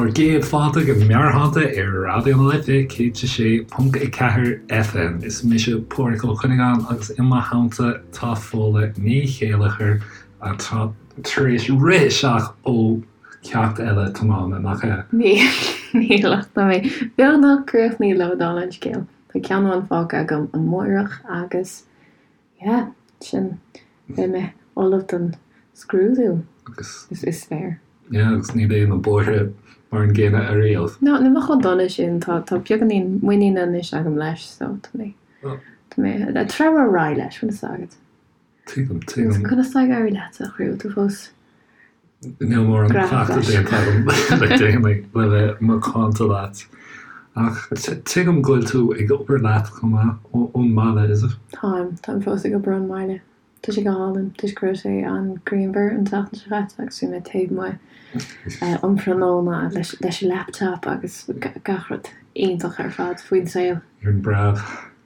Bhur gcéad fáilte go Meabhairshláinte ar Raidió na Life 106.4 FM. Is mise Pádhraic Ó Cuinneagáin agus i mo theannta tá Fódhla Ní Chéilleachair atá tar éis rith isteach ó cheacht eile tiomána, nach ea? Níl ach tá mé beagnach críochnaithe le dála an scéil. Tá ceann amháin fágtha agam amárach agus Yeah, sin, beidh mé ullamh don scrúdú, Agus. is féar. Yeah, agus ní bheidh na bóithre mar an gcéanna ariamh. No, ní bheidh chomh dona sin, tá, tá beagáinín muiníne anois agam leis, so tá mé, tá mé ag treabhadh ar aghaidh leis, bhfuil fhios agat. Tuigim, tuigim. Conas tá ag éirí leatsa, a chroí, bhfuil tú fós Níl mórán cleachtadh déanta agam le déanaí le bheith macánta leat. Ach tuigim go bhfuil tú ag obair leat chomh maith ón mbaile, is it? Táim, táim fós ag obair ón mbaile. Tá sé go hálainn toisc go raibh sé an-ghrianmhar an tseachtain seo caite agus bhí mé taobh amuigh um thráthnóna leis an laptop agus gach rud iontach ar fad faoin saol. Ar an bpreab?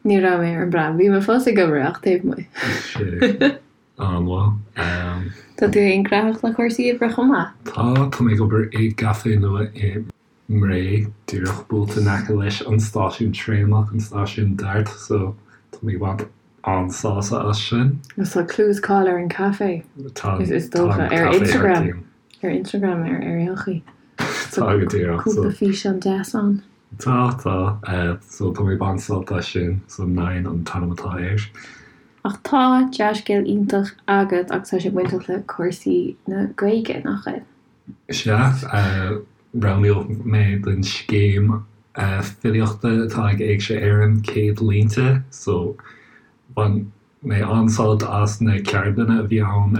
Ní raibh mé ar an bpreab, bhí mé fós ag obair ach taobh amuigh. Sea. An-mhaith. Tá tú féin gnóthach le cúrsaí oibre chomh maith? Tá, tá mé ag obair i gcaifé nua i mBré, díreach buailte in aice leis an stáisiún traenach, an stáisiún DART, so tá mé ag baint an-sásamh as sin. Agus tá clú is cáil ar an caifé, Tá, is tá dócha, an ar caifé thar Instagram, cionn. ar Instagram ar ar aon chaoi. Tá go díreach, so. Cúpla físeán deas ann. Tá, tá, so tá mé ag baint sult as sin, so Nine an t-ainm atá air. Ach tá dea-scéal iontach agat agus tá sé bainteach le cúrsaí na Gaeilge, nach bhfuil? Sea, roghnaíodh mé don scéim filíochta atá ag Éigse Éireann, 100 Línte, so bhain mé an-sult as na ceardlanna a bhí ann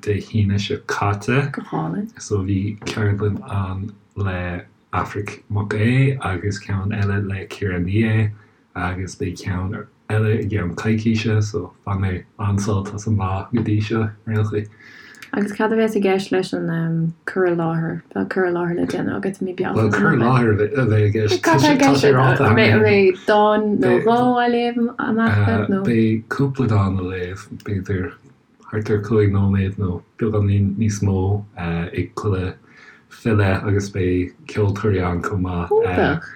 Dé hAoine seo caite. Go hálainn. So bhí ceardlann ann le Aifric Mac Aodha agus ceann eile le Ciara Ní É agus beidh ceann eile i gceann coicíse so bhain mé an-sult as an lá go dtí seo ar aon chaoi. Agus cad a bheas i gceist leis an cur i láthair? Tá cur i láthair le déanamh agat i mí Bealtaine. Bhuel, cur i láthair a bheidh i gceist. Cad tá i gceist? An mbeidh dán nó dhó á léamh amach agat nó? Beidh cúpla dán á léamh, b'fhéidir thart ar 5 nóiméad nó beagáinín níos mó ag chuile file agus beidh ceoltóirí ann chomh maith. Iontach!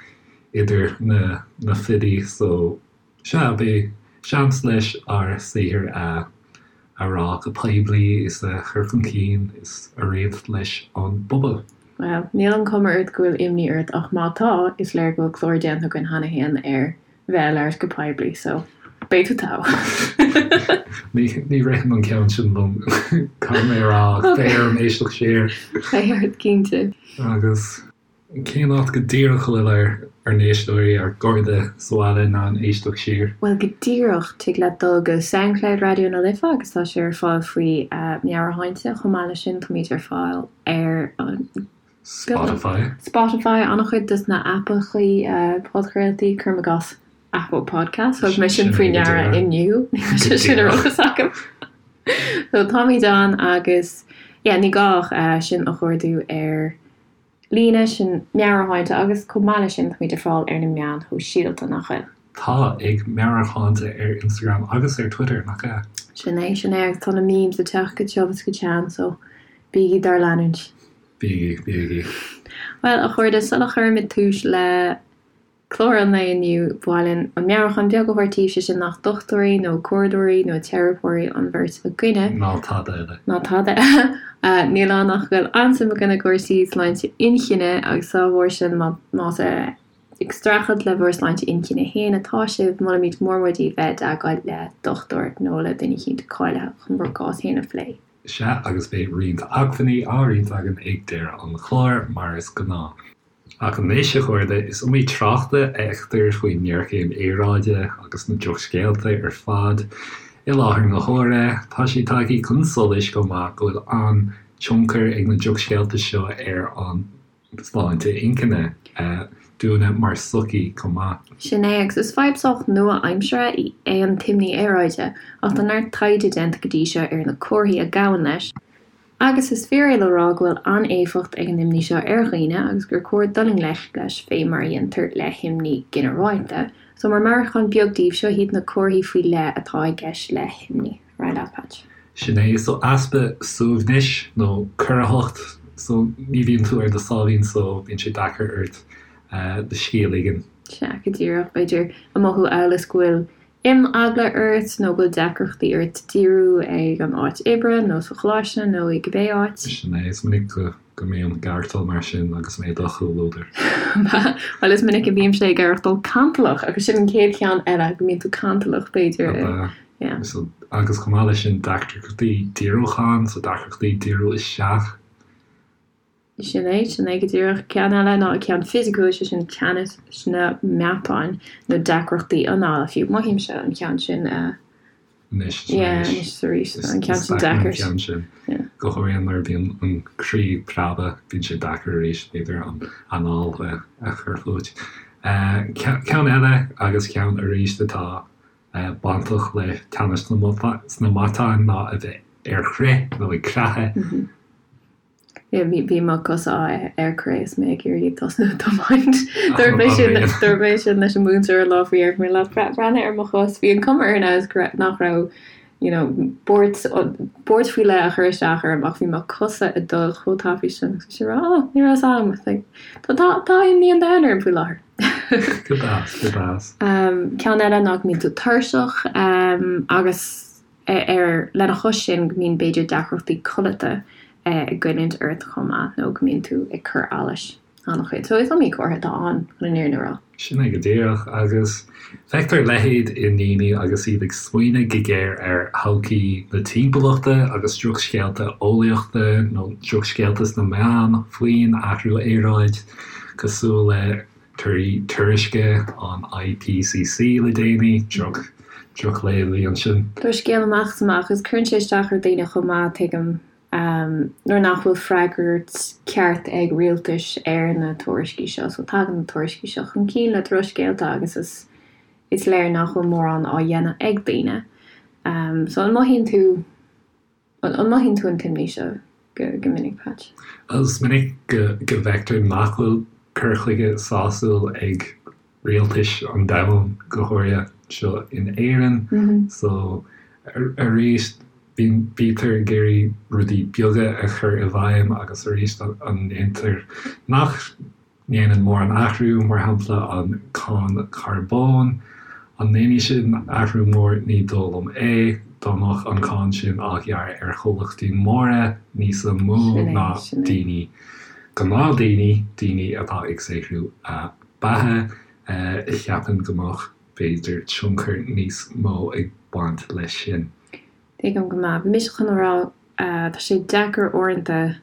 idir na filí so sea, beidh seans leis ár saothar a a rá go poiblí is a chur chun cinn is a roinnt leis an bpobal. Bhuel, níl an chuma ort go bhfuil imní ort ach má tá, is léir go bhfuil clár déanta againn cheana féin ar bheith ag labhairt go poiblí so beidh tú togha! Ní ní ritheann an ceann sin liom, caithfidh mé a rá, ach beidh orm éisteacht siar. Beidh ort, cinnte. Agus. Cén áit go díreach a bhfuil ár n-éisteoirí, ár gcairde sa bhaile in ann éisteacht siar? Bhuel, go díreach, tig leat dul go Soundcloud Raidió na Life agus tá sé ar fáil faoi Meabhairshláinte. Chomh maith leis sin, táimid ar fáil ar an. Spotify. Spotify, an-chuid dos na aipeachaí podchraoltaí, cuirim i gcás Apple Podcasts, thug mé sin faoi ndeara inniu, ní raibh sé sin ar eolas agam. So táimid ann agus, yeah, ní gá ach sinn a chuardú ar. líne, sin Meabhairshláinte agus chomh maith leis sin táimid ar fáil ar na meáin shóisialta, nach bhfuil? Tá, ag Meabhairshláinte ar Instagram agus ar Twitter, nach ea? Sin é, sin é agus tá na memes ag teacht go tiubh is go teann so bígí dár leanúint. Bígí, bígí. Bhuel, a chairde, sula chuirimid tús le Clár an lae inniu, ba mhaith linn an meabhrúchán beag a thabhairt daoibh, sé sin nach dochtúirí nó comhairleoirí nó teiripeoirí an bheirt againne. Ná tada eile. Ná tada eile. Níl ann ach go bhfuil an-suim againn i gcúrsaí sláinte inchinne agus dá bharr sin más ag streachailt le bhur sláinte inchinne féin atá sibh, molaimid mór mór daoibh bheith i dteagmháil le dochtúir nó le duine eicínt cáilithe chun bhur gcás féin a phlé. Sea, agus beidh roinnt acmhainní á roinnt againn ag deireadh an chláir, mar is gnáth. Ach anois, a chairde, is iomaí trácht a fheictear faoin ngéarchéim aeráide agus na drochscéalta ar fad i láthair na huaire. Tá sé tagtha chun solais chomh maith go bhfuil an-tionchar ag na drochscéalta seo ar an tsláinte inchinne dúinne mar sochaí chomh maith. Sin é, agus is fadhb sách nua-aimseartha é an t-imní aeráide, ach tá neart taighde déanta go dtí seo ar na comharthaí a ghabhann leis, Agus is fíor é le rá go bhfuil an-éifeacht ag an imní seo ar dhaoine agus gur cóir dul i ngleic leis fé mar a dhéantar le himní ginearálta. So mar meabhrúchán beag daoibh, seo iad na comharthaí faoi leith atá i gceist le himní. Ar aghaidh leat, Patch. Sin é, so easpa suaimhnis nó corraitheacht. So ní bhíonn tú ar do sáimhín só, bíonn sé deacair ort do scíth a ligean. Sea, go díreach. B'fhéidir ag mothú amhail is go bhfuil imeagla ort nó go bhfuil deacrachtaí ort díriú ag an áit oibre nó sa choláiste nó i cibé áit. Sin é, is minic go go mbím ag aireachtáil mar sin agus mé i do chomhluadar. Bhuel, is minic a bhímse ag aireachtáil cantalach agus sin an chéad cheann eile, go mbíonn tú cantalach, b'fhéidir. Ab ea? Yeah. So, agus chomh maith leis sin deacrachtaí díriúcháin, so deacrachtaí díriú isteach. Sin é, sin é go díreach. Ceann eile ná ceann fisiciúil, sé sin teannas sna meatáin nó deacrachtaí anála fiú. Mothaímse an ceann sin anois is yeah, anois is arís. Tá an ceann sin deacair. Is deacair an ceann sin. Yeah. Go háirithe nuair a bhíonn an croí ag preabadh, bíonn sé deacair arís, b'fhéidir, an anáil a chur fút. Ceann eile agus ceann arís atá bainteach le teannas sna matáin ná a bheith ar crith nó ag creathadh. Bhí mo chosa ar crith is mé ag iarraidh tosnú ag tiomáint. Dúirt mé sin dúirt mé sin leis an múinteoir an lá faoi dheireadh, mé le breathnaigh ar mo chos, bhí an cuma air now is nach raibh you know buairt buairt faoi leith a chur isteach orm ach bhí mo chosa ag dul chomh tapaidh sin agus bhí sé ag rá oh ní raibh a fhios agam like tá tá tá imní an domhain orm faoi láthair. Go deas, go deas. Ceann eile ná go mbíonn tú tuirseach agus ar lena chois sin go mbíonn b'fhéidir deacrachtaí codlata ag goilliúint ort chomh maith nó go mbíonn tú ag cur allais an-chuid. So is iomaí comhartha atá ann chun an fhírinne a rá. Sin é go díreach. Agus feictear a leithéid i ndaoine agus iad ag smaoineamh go géar ar thodhchaí na timpeallachta agus drochscéalta eolaíochta nó drochscéalta sna meáin faoin athrú aeráide, cosúil le torthaí tuairisce an IPCC le déanaí, droch, drochléamh a bhí ansin. Drochscéal amach is amach agus cuireann sé isteach ar dhaoine chomh maith, tuigim, nuair nach bhfuil freagairt ceart ag rialtais ar na tuairiscí seo. So tagann na tuairiscí seo chun cinn le drochscéalta agus is is léir nach bhfuil mórán á dhéanamh ag daoine. So an mothaíonn tú An mothaíonn tú an t-imní seo go minic, Patch? Is minic go bhfeictear nach bhfuil cur chuige sásúil ag rialtais an domhain, go háirithe anseo in Éirinn. So, arís, bítear ag iarraidh rudaí beaga a chur i bhfeidhm agus arís an ndéantar nach ndéanann mórán athrú, mar shampla an cáin charbóin. An ndéanfaidh sin athrú mór? Ní dóigh liom é. Dá mbeadh an cáin sin á ghearradh ar chomhlachtaí móra níos mó ná daoine, gnáthdaoine, daoine atá ag saothrú a beatha, cheapfainn go mbeadh, b'fhéidir, tionchar níos mó ag baint leis sin. Tuigim go maith. Bhí mise chun a rá, tá sé deacair uaireanta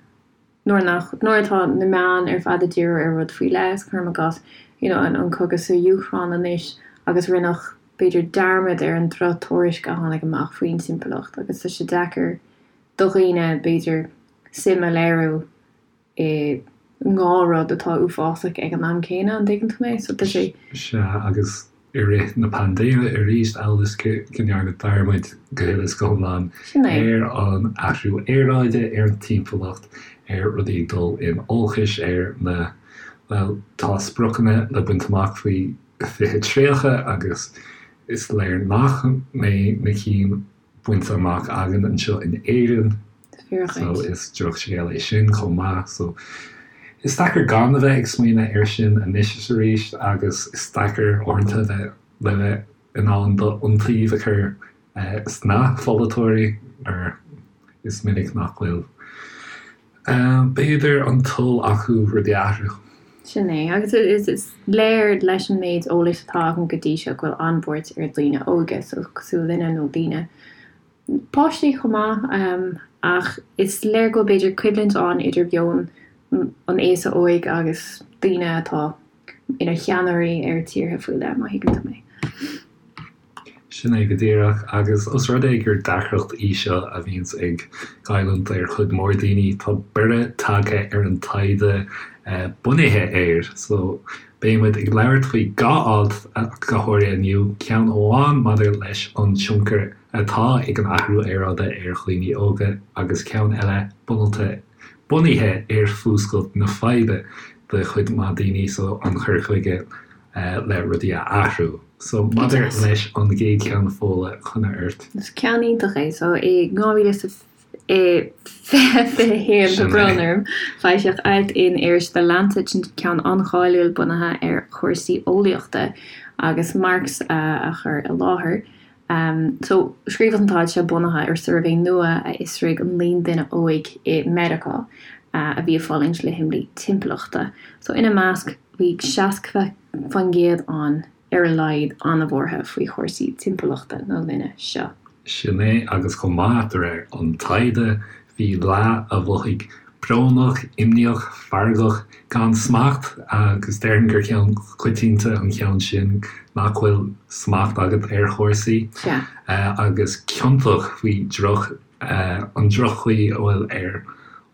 nuair nach, nuair atá na meáin ar fad ag díriú ar rud faoi leith, cuirim i gcás, you know, an cogadh sa Úcráin anois agus rinneadh, b'fhéidir, dearmad ar an drochthuairisc a tháinig amach faoin timpeallacht agus tá sé deacair do dhaoine, b'fhéidir, suim a léiriú i ndhá rud atá uafásach ag an am céanna, an dtuigeann tú mé? So tá sé. Sea, agus i rith na paindéime arís, amhail is go ndearnadh dearmad go huile is go hiomlán ar an athrú aeráide, ar an timpeallacht, ar rudaí ag dul in olcais, ar na, bhuel, tá spriocanna le baint amach faoi 2030 agus is léir nach mbeidh na cinn bainte amach againn anseo in Éirinn so is drochscéal é sin chomh maith. So is deacair gan a bheith ag smaoineamh air sin anois is arís agus is deacair uaireanta bheith le bheith in ann d'iontaoibh a chur sna pholaiteoirí mar is minic nach bhfuil b'fhéidir an toil acu rudaí a athrú. Sin é. Agus is léir leis an méid eolais atá agam go dtí seo go bhfuil an-bhuairt ar dhaoine óga, so cosúil linne nó daoine, páistí chomh maith, ach is léir go bhfuil b'fhéidir coimhlint ann idir mheon an aosa óig agus daoine atá ina cheannairí ar tíortha faoi leith, má thuigeann tú mé. Sin é go díreach. Agus os rud é gur deacracht í seo a bhíonns ag goilliúint ar chuid mhór daoine, tá borradh tagtha ar an taighde bunaithe air. So, beidh muid ag labhairt faoi dhá alt go háirithe inniu, ceann amháin maidir leis an tionchar atá ag an athrú aeráide ar dhaoine óga agus ceann eile bunaithe bunaithe ar fuascailt na faidhbe do chuid mhaith daoine, so an cur chuige le rudaí a athrú. So, maidir leis an gcéad cheann, Fódhla, coinne ort. Is ceann iontach é. So, i 2021. I 2021, tá brón orm, foilsíodh alt in iris The Lancet, sin ceann an-cháiliúil bunaithe ar chúrsaí eolaíochta agus Marks a chur i láthair. So, scríobhadh an t-alt seo bunaithe ar suirbhé nua a fhiosraigh an líon duine óig i Meiriceá a bhí ag fulaingt le himní timpeallachta. So, ina measc bhí 60% ann ar a laghad, an-bhuartha faoi chúrsaí timpeallachta na linne seo. Sin é, agus chomh maith, de réir an taighde, bhí leath a mhothaigh brónach, imníoch, feargach, gan smacht, agus déarfainn gur ceann coitianta an ceann sin, nach bhfuil smacht agat ar chúrsaí, agus ciontach faoi droch, an droch-chaoi a bhfuil ar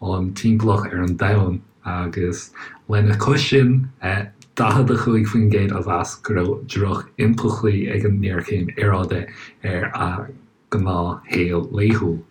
an timpeallacht, ar an domhan. Agus lena chois sin, 45% a mheas go raibh droch-impleachtaí ag an ngéarchéim aeráide ar a ngnáthshaol laethúil.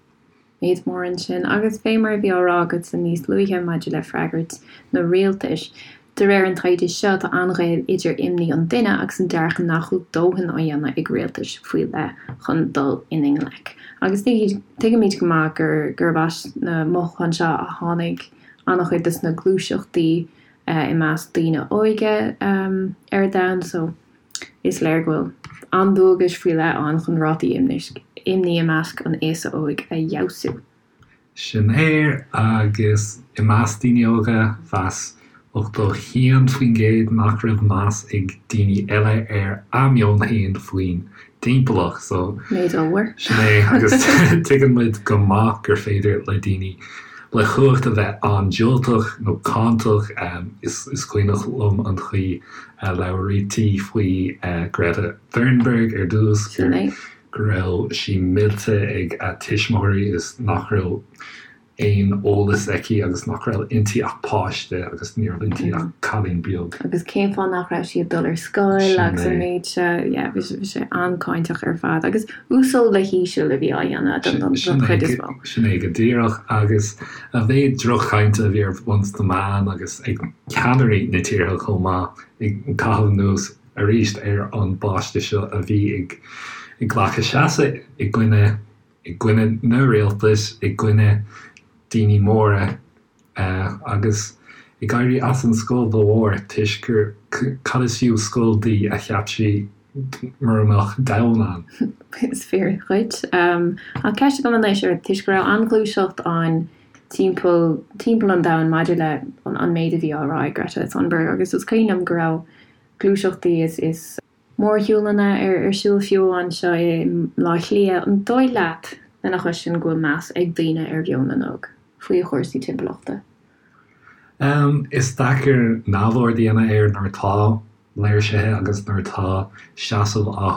Méid mór ansin. Agus fé mar a bhí á rá agatsa níos luaithe maidir le freagairt na rialtais, de réir an taighde seo tá an-ghaol idir imní an duine agus an dearcadh nach bhfuil dóthain á dhéanamh ag rialtais faoi leith chun dul ina ngleic. Agus tuigimid go maith gurb as na mothúcháin seo a tháinig an-chuid des na gluaiseachtaí i measc daoine óige ar domhan so is léir go bhfuil an-dualgais faoi leith ann chun rátaí imní i measc an aosa óig a fheabhsú. Sin é, agus i measc daoine óga, mheas 81% nach raibh meas ag daoine eile ar a meon féin faoin dtimpeallacht. So, Méid ollmhór. sin é, agus tuigeann muid go maith gur féidir le daoine le cumhacht a bheith an-diúltach nó cáinteach. Is is cuimhneach liom an chaoi a labhraítí faoi Greta Thunberg ar dtús, Sin é. go raibh sí millte ag a tuismitheoirí is nach raibh aon eolas aici agus nach raibh inti ach páiste agus ní raibh inti ach cailín beag. Agus cén fáth nach raibh sí ag dul ar scoil agus an méid seo, yeah, bhí sé an-cáinteach ar fad agus uasal le híseal a bhí á dhéanamh don chuid is mó. Sin é go díreach agus a mhéid droch-chainte a bhí ar bun sna meáin agus ag ceannairí na tíortha chomh maith ag caitheamh anuas arís ar an bpáiste seo a bhí ag glacadh seasamh i gcoinne i gcoinne na rialtais, i gcoinne daoine móra agus ag éirí as an scoil dá bharr toisc gur cad is fiú scoil di a cheap sí mura mbeadh domhan ann. Is fíor dhuit. Ach ceist agam anois ort, toisc go raibh an-ghluaiseacht ann timpeall timpeall an domhain maidir le an méid a bhí á rá ag Greta Thunberg agus is cuimhin liom go raibh gluaiseachtaí is is mórshiúlanna ar siúl fiú anseo i mBleá Cliath. An dóigh leat, lena chois sin, go bhfuil meas ag daoine ar mheon na n-óg faoi chúrsaí timpeallachta? Is deacair neamhaird a dhéanamh air nuair atá léirsithe agus nuair atá seasamh á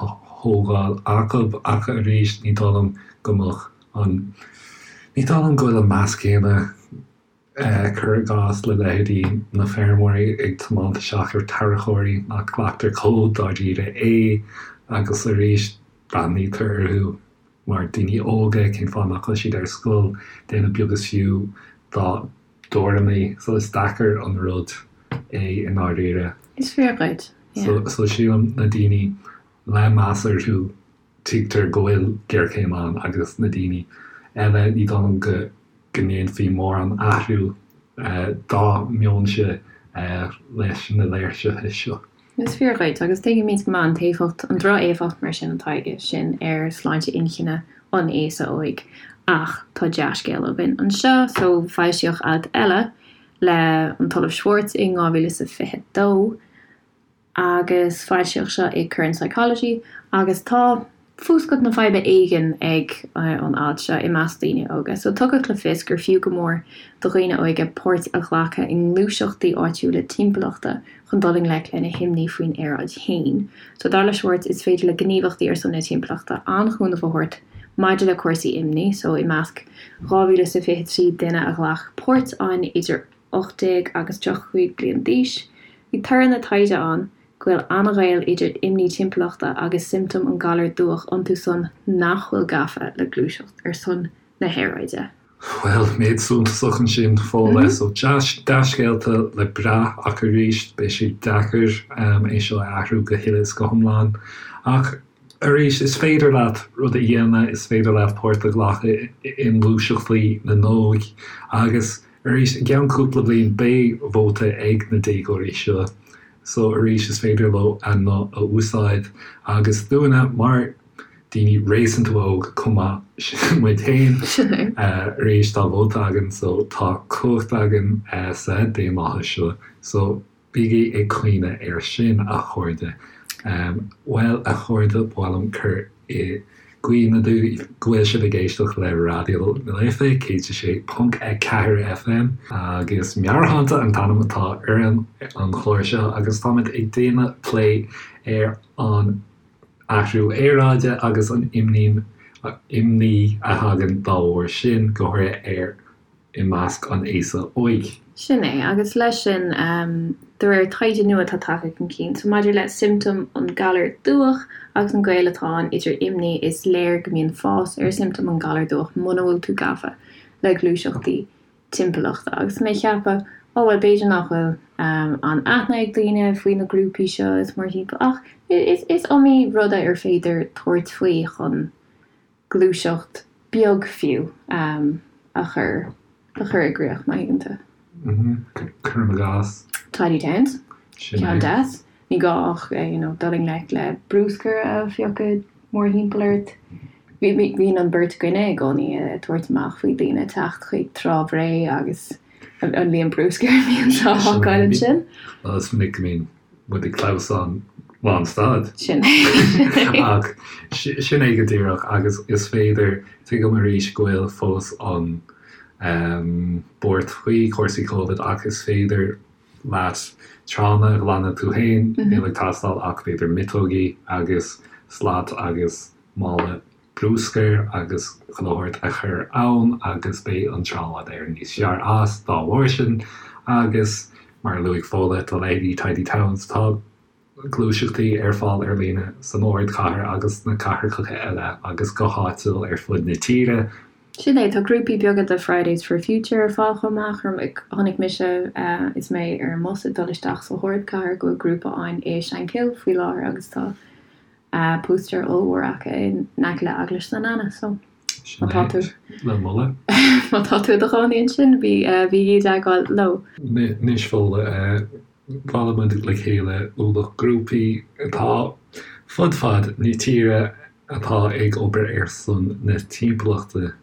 thógáil acu ach arís ní dóigh liom go mbeadh an, ní dóigh liom go bhfuil an meas céanna Cuir i gcás le leithéidí na feirmeoirí ag tiomáint isteach ar tarracóirí nach nglactar chomh dáiríre é agus arís breathnaítear orthu mar daoine óga, cén fáth nach bhfuil siad ar scoil, déanamh beag is fiú dá dtuairimí. So is deacair an rud é i ndáiríre. Is fíor dhuit, yeah. So sílim na daoine le meas orthu tuigtear go bhfuil géarchéim ann agus na daoine eile, ní dóigh liom go ndéanfaí mórán athrú dá meonsa leis na léirsithe seo. Is fíor dhuit, agus tuigimid go maith an t-éifeacht, an droch-éifeacht mar sin atá aige sin ar sláinte inchinne an aosa óig. Ach tá dea-scéal againn anseo, so foilsíodh alt eile le an tOllamh Schwartz in 2022, agus foilsíodh seo i Current Psychology agus tá fuascailt na faidhbe éigin ag an alt seo i measc daoine óga. So tugadh le fios gur fiú go mór do dhaoine óige páirt a ghlacadh i ngluaiseachtaí áitiúla timpeallachta chun dul i ngleic lena himní faoin aeráid féin. So dar le Schwartz is féidir le gníomhachtaí ar son na timpeallachta an-chúnamh a thabhairt maidir le cúrsaí imní. So i measc 2,023 duine a ghlac páirt ann idir 18 agus 35 bliain d'aois, bhí toradh na taighde ann go bhfuil an-ghaol idir imní timpeallachta agus siomptóim an galair dubhach iontu san nach bhfuil gafa le gluaiseacht ar son na haeráide. Bhuel, méid suntasach ansin, Fódhla. So, dea-scéalta le brath ach arís, beidh sé deacair é seo a athrú go huile is go hiomlán. Ach. Arís, is féidir leat rud a dhéanamh, is féidir leat páirt a ghlacadh i ngluaiseachtaí na n-óg agus arís, i gceann cúpla bliain beidh vóta ag na déagóirí seo so arís is féidir leo a nguth a úsáid agus dúinne mar daoine réasúnta óg chomh maith, sin muid féin, arís tá vóta againn so tá cumhacht againn sa daonlathas seo so Bígí ag cuimhneamh air sin, a chairde. Bhuel, a chairde, ba mhaith liom cur i gcuimhne daoibh go bhfuil sibh ag éisteacht le Raidió na Life 106.4 FM, agus Meabhairshláinte an t-ainm atá ar an chlár seo, agus táimid ag déanamh plé ar an athrú aeráide agus an imní a thagann dá bharr sin, go háirithe ar i measc an aosa óig. Sin é, agus leis sin, de réir taighde nua atá tagtha chun cinn, so maidir le siomptóim an ghalar dubhach agus an gaol atá ann idir imní, is léir go mbíonn fás ar siomptóim an ghalair dubhach muna bhfuil tú gafa le gluaiseachtaí timpeallachta. Agus mé ag ceapadh, ó bhuel, b'fhéidir nach bhfuil an aithne ag daoine faoi na grúpaí seo is mórthimpeall, ach is iomaí rud ar féidir tabhairt faoi chun gluaiseacht beag fiú a chur a chur i gcrích, má thuigeann tú. Cuirim i gcás. Tidy Towns. Ceann deas. Ní gá ach you know dul i ngleic le bruscar a phiocadh mórthimpeall ort. Bíonn an bheirt againne i gcónaí ag tabhairt amach faoi daoine teacht chuig Trá Bhré agus an líon bruscair a bhíonn á fhágáil ansin. Bhuel, is minic go mbíonn muid ag clamhsán lán stad. Sin é. Ach sin é go díreach agus is féidir, tuigim arís go bhfuil fós an buairt faoi chúrsaí Covid ach is féidir leat tránna a ghlanadh tú féin, níl ag teastáil ach b'fhéidir miotógaí agus slat agus mála. bruscair agus chuile shórt a chur ann agus beidh an trá i bhfad Éireann níos fearr as dá bharr sin agus mar a luaigh Fódhla, tá leithéidí Tidy Towns, tá gluaiseachtaí ar fáil ar líne san ardchathair agus sna cathracha eile agus go háitiúil ar fud na tíre. Sin é, tá grúpaí beaga de Fridays for Future ar fáil chomh maith. Chonaic mise is mé ar an mbus ag dul isteach sa ardchathair go bhfuil grúpa ann i Shankill faoi láthair agus tá Póstaer ollmhór acu in aice le Eaglais San Anna so má tá tú le moladh. Má tá tú i do chónaí ansin bí bígí i dteagmháil leo. Anois Fódhla, bhailigh muid le chéile ualach grúpaí atá fud fad na tíre atá ag obair ar son na timpeallachta.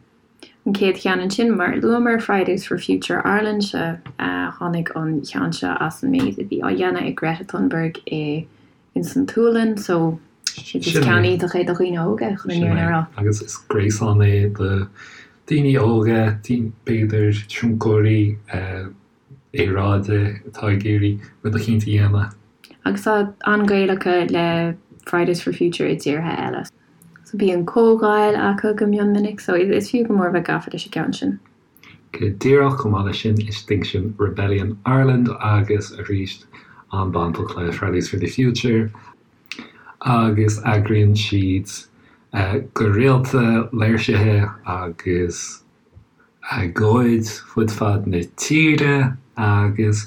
An chéad cheann ansin, mar a luamar, Fridays for Future Ireland, sea, tháinig an ceann seo as an méid a bhí á dhéanamh ag Greta Thunberg i ins an tSualainn so is ceann iontach é do dhaoine óga chun an fhírinne a rá. Agus is gréasán é do daoine óga, b'fhéidir tionchairí aeráide atá ag iarraidh rud eicínt a dhéanamh. Agus tá an-ghaol acu le Fridays for Future i dtíortha eile. So bíonn comhdháil acu go mion minic so is fiú go mór bheith gafa leis an gceann sin. Go díreach, chomh maith leis sin, Extinction Rebellion Ireland agus arís an-bainteach le Fridays for the Future agus eagraíonn siad go rialta léirsithe agus agóid fud fad na tíre agus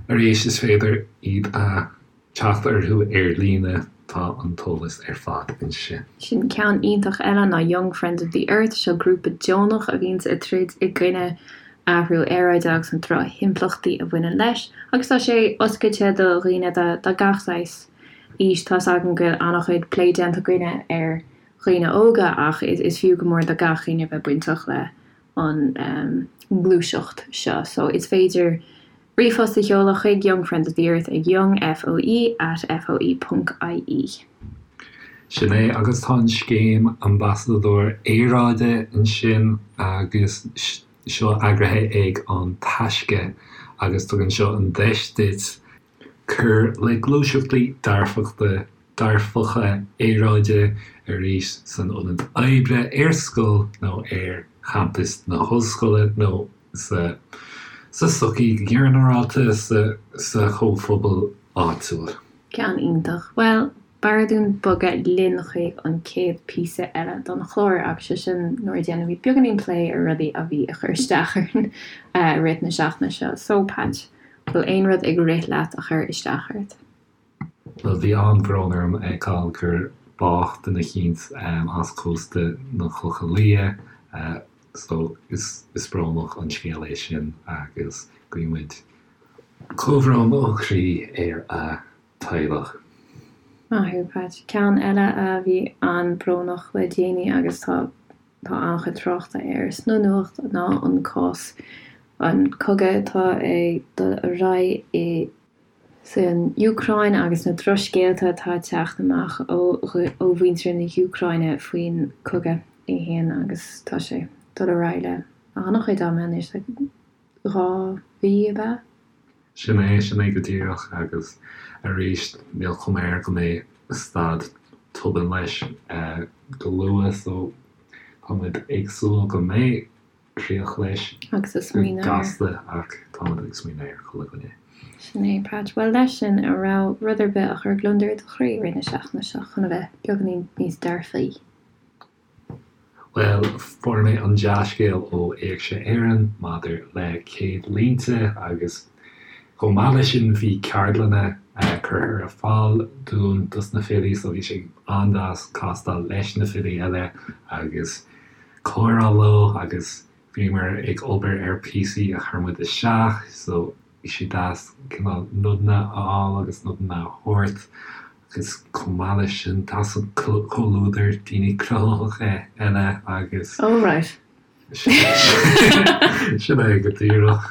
arís is féidir iad a teacht orthu ar líne, tá an t-eolas ar fad ansin. Sin ceann iontach eile ná Young Friends of the Earth, seo grúpa deonach a bhíonns ag troid i gcoinne athrú aeráide agus na drochimpleachtaí a bhaineann leis agus tá sé oscailte do dhaoine de gach saghas aois. Tá's agam go bhfuil an-chuid plé déanta againne ar dhaoine óga ach is fiú go mór do gach éinne bheith bainteach le an ngluaiseacht seo so is féidir Ríomhphost a sheoladh chuig Young Friends of the Earth ag youngfoe at foe ponc ie. Sin é, agus tá an scéim Ambasadóir Aeráide ansin agus seo eagraithe ag An Taisce agus tugann seo an deis duit cur le gluaiseachtaí dearfachta, dearfacha aeráide arís san ionad oibre, ar scoil nó ar champas na hollscoile nó sa sa tsochaí go ginearálta, sa sa chomhphobal áitiúil. Ceann iontach. Bhuel, b'fhearr dúinn bogadh linn chuig an chéad píosa eile don chlár agus sé sin nuair a dhéanfaimid beagáinín plé ar rudaí a bhí ag cur isteach orainn i rith na seachtaine seo. So, Patch, bhfuil aon rud ag rith leat a chuir isteach ort? Bhuel, bhí an-bhrón orm a fheiceáil gur. bádh duine eicínt as cósta na Clocha Liath so is brónach an scéal é sin agus guímid comhbhrón ó chroí ar a teaghlach. Maith thú, Pat. Ceann eile a bhí an-brónach le déanaí agus tá tá an-chuid tráchta air sna nuacht ná an cás, an cogadh atá ag dul ar aghaidh i san Úcráin agus na drochscéalta atá ag teacht amach ó ó mhuintir na hÚcráine faoin cogadh é fhéin agus tá sé ag dul ar aghaidh le an-chuid ama anois, like 2 mhí ab ea? Sin é, sin é go díreach agus arís níl cuma air go mbeidh stad tobann leis go luath so táimid ag súil go mbeidh críoch leis Agus ag go smaoineamh ar. gasta ach táimid ag smaoineamh ar chuile dhuine. Sin é, Pat. Bhuel, leis sin, an raibh rud ar bith a chuir gliondar i do chroí i rith na seachtaine seo chun a bheith beagáinín níos dearfaí? Bhuel, fuair mé an dea-scéal ó Éigse Éireann maidir le Céadlínte agus chomh maith leis sin bhí ceardlanna curtha ar fáil dúinn dos na filí so bhí sé an-deas castáil leis na filí eile agus comhrá leo agus bhíomar ag obair ar píosaí a chuir muid isteach so bhí sé deas cineál nodanna a fháil agus nodanna a thabhairt agus chomh maith leis sin tá an comhluadar daoine cruthaitheacha eile agus. Oh right. Sin é go díreach.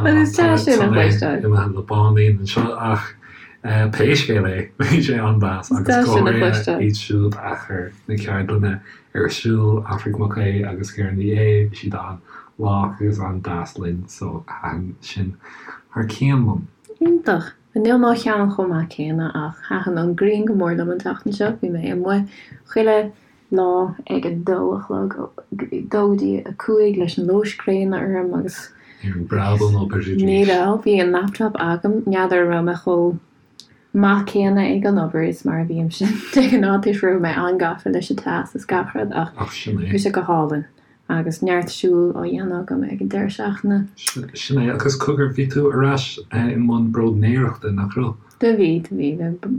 Bhuel is deas sin a chloisteáil. Imithe le báinín anseo ach pé scéal é bhí sé an-deas agus go háirithe iad siúd a chuir na ceardlanna ar siúl, Aifric Mac Aodha agus Ciara Ní É, bhí siad an-lách agus an-deas linn so thaitin sin thar cionn liom. Iontach. Níl mo cheann chomh maith céanna ach thaitin an ghrian go mór liom an tseachtain seo. Bhí mé amuigh chuile lá ag a dó a chlog, dó go dtí a cúig leis an luas gréine orm agus. Ní raibh breab ón obair arís. Ní raibh. Bhí an laptop agam. N'fheadar an raibh mé chomh maith céanna ag an obair is mar a bhímse de ghnáth toisc go raibh mé an-gafa leis an teas is gach rud ach bhí sé go hálainn. Agus neart siúil á dhéanamh agam ag an deireadh seachtaine. Sin é, agus cogar, bhí tú ar ais i mbun bróidnéireachta, nach raibh? Do bhí, do bhí.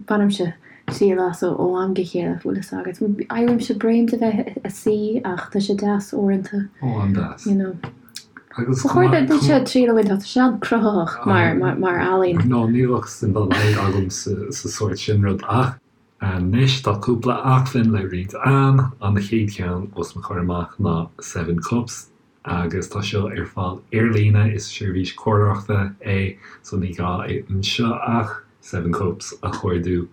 Bainimse triail as ó am go chéile, bhfuil fhios agat. Éirímse bréan de bheith ag suí ach tá sé deas uaireanta. Ó, an-deas. You know. Agus Ba chóir duitse triail a bhaint as, tá sé an-cruthaitheach mar ealaín. No, ní bheadh suim dá laghad agam sa sórt sin rud ach. Anois tá cúpla acmhainn le roinnt a'm. An chéad cheann os mo chomhair amach ná Seven Cups agus tá seo ar fáil ar líne, is seirbhís comhairleoireachta é so ní gá anseo ach Seven Cups a chuardú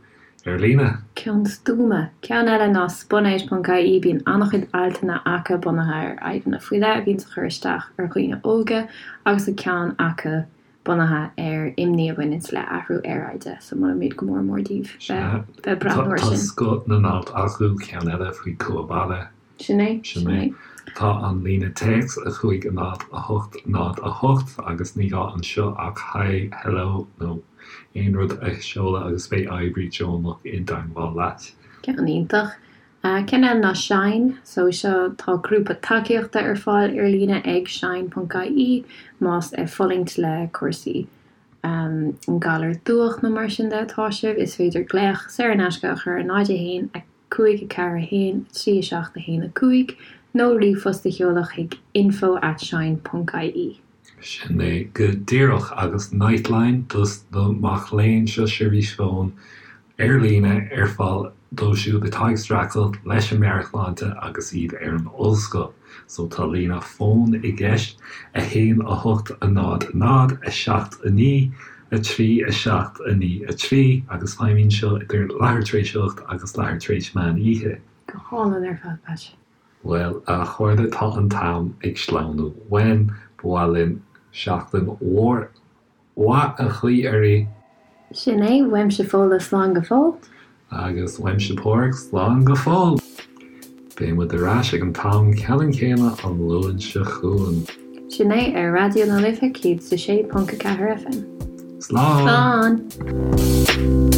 ar líne. Ceann stuama. Ceann eile ná spunout ponc ie, bíonn an-chuid altanna acu bunaithe ar fhadhbanna faoi leith a bhíonns ag cur isteach ar dhaoine óga agus tá ceann acu bunaithe ar imní a bhaineanns le athrú aeráide, so molaimid go mór mór daoibh bheith ag breathnú air sin. Tá scoth na n-alt acu, ceann eile faoi cumha baile. Sin é, sin é. Tá an líne téacs, 5 0 8 0 8, agus ní gá anseo ach Hi, Hello nó aon rud a sheoladh agus beidh oibrí deonach i dteangmháil leat. Ceann iontach. Ceann eile ná Shine. So seo, tá grúpa tacaíochta ar fáil ar líne ag shine ponc ie más ag fulaingt le cúrsaí an galar dubhach nó mar sin de atá sibh. Is féidir glaoch saor in aisce a chur ar 0 1 5 4 1 3 7 1 5 nó ríomhphost a sheoladh chuig info at shine ponc ie. Sin é go díreach. Agus Nightline dos na mac léinn, seo seirbhís fóin ar líne ar fáil dóibh siúd atá ag streachailt leis an meabhairshláinte agus iad ar an ollscoil. So tá líne fóin i gceist, 1 8 0 0 7 9 3 7 9 3, agus feidhmíonn seo idir leathuair tar éis 8 agus leathuair tar éis meán oíche. Go hálainn ar fad, Pat. Bhuel, a chairde, tá an t-am ag sleamhnú uainn. Ba mhaith linn seachtain mhór mhaith a ghuí oraibh. Sin é, uaimse Fódhla, slán go fóill. Agus uaimse Pádraig, slán go fóill. Beidh muid ar ais ag an t-am ceannann céanna an Luan seo chugainn. Sin é, ar Raidió na Life 106.4 FM. Slán! Slán!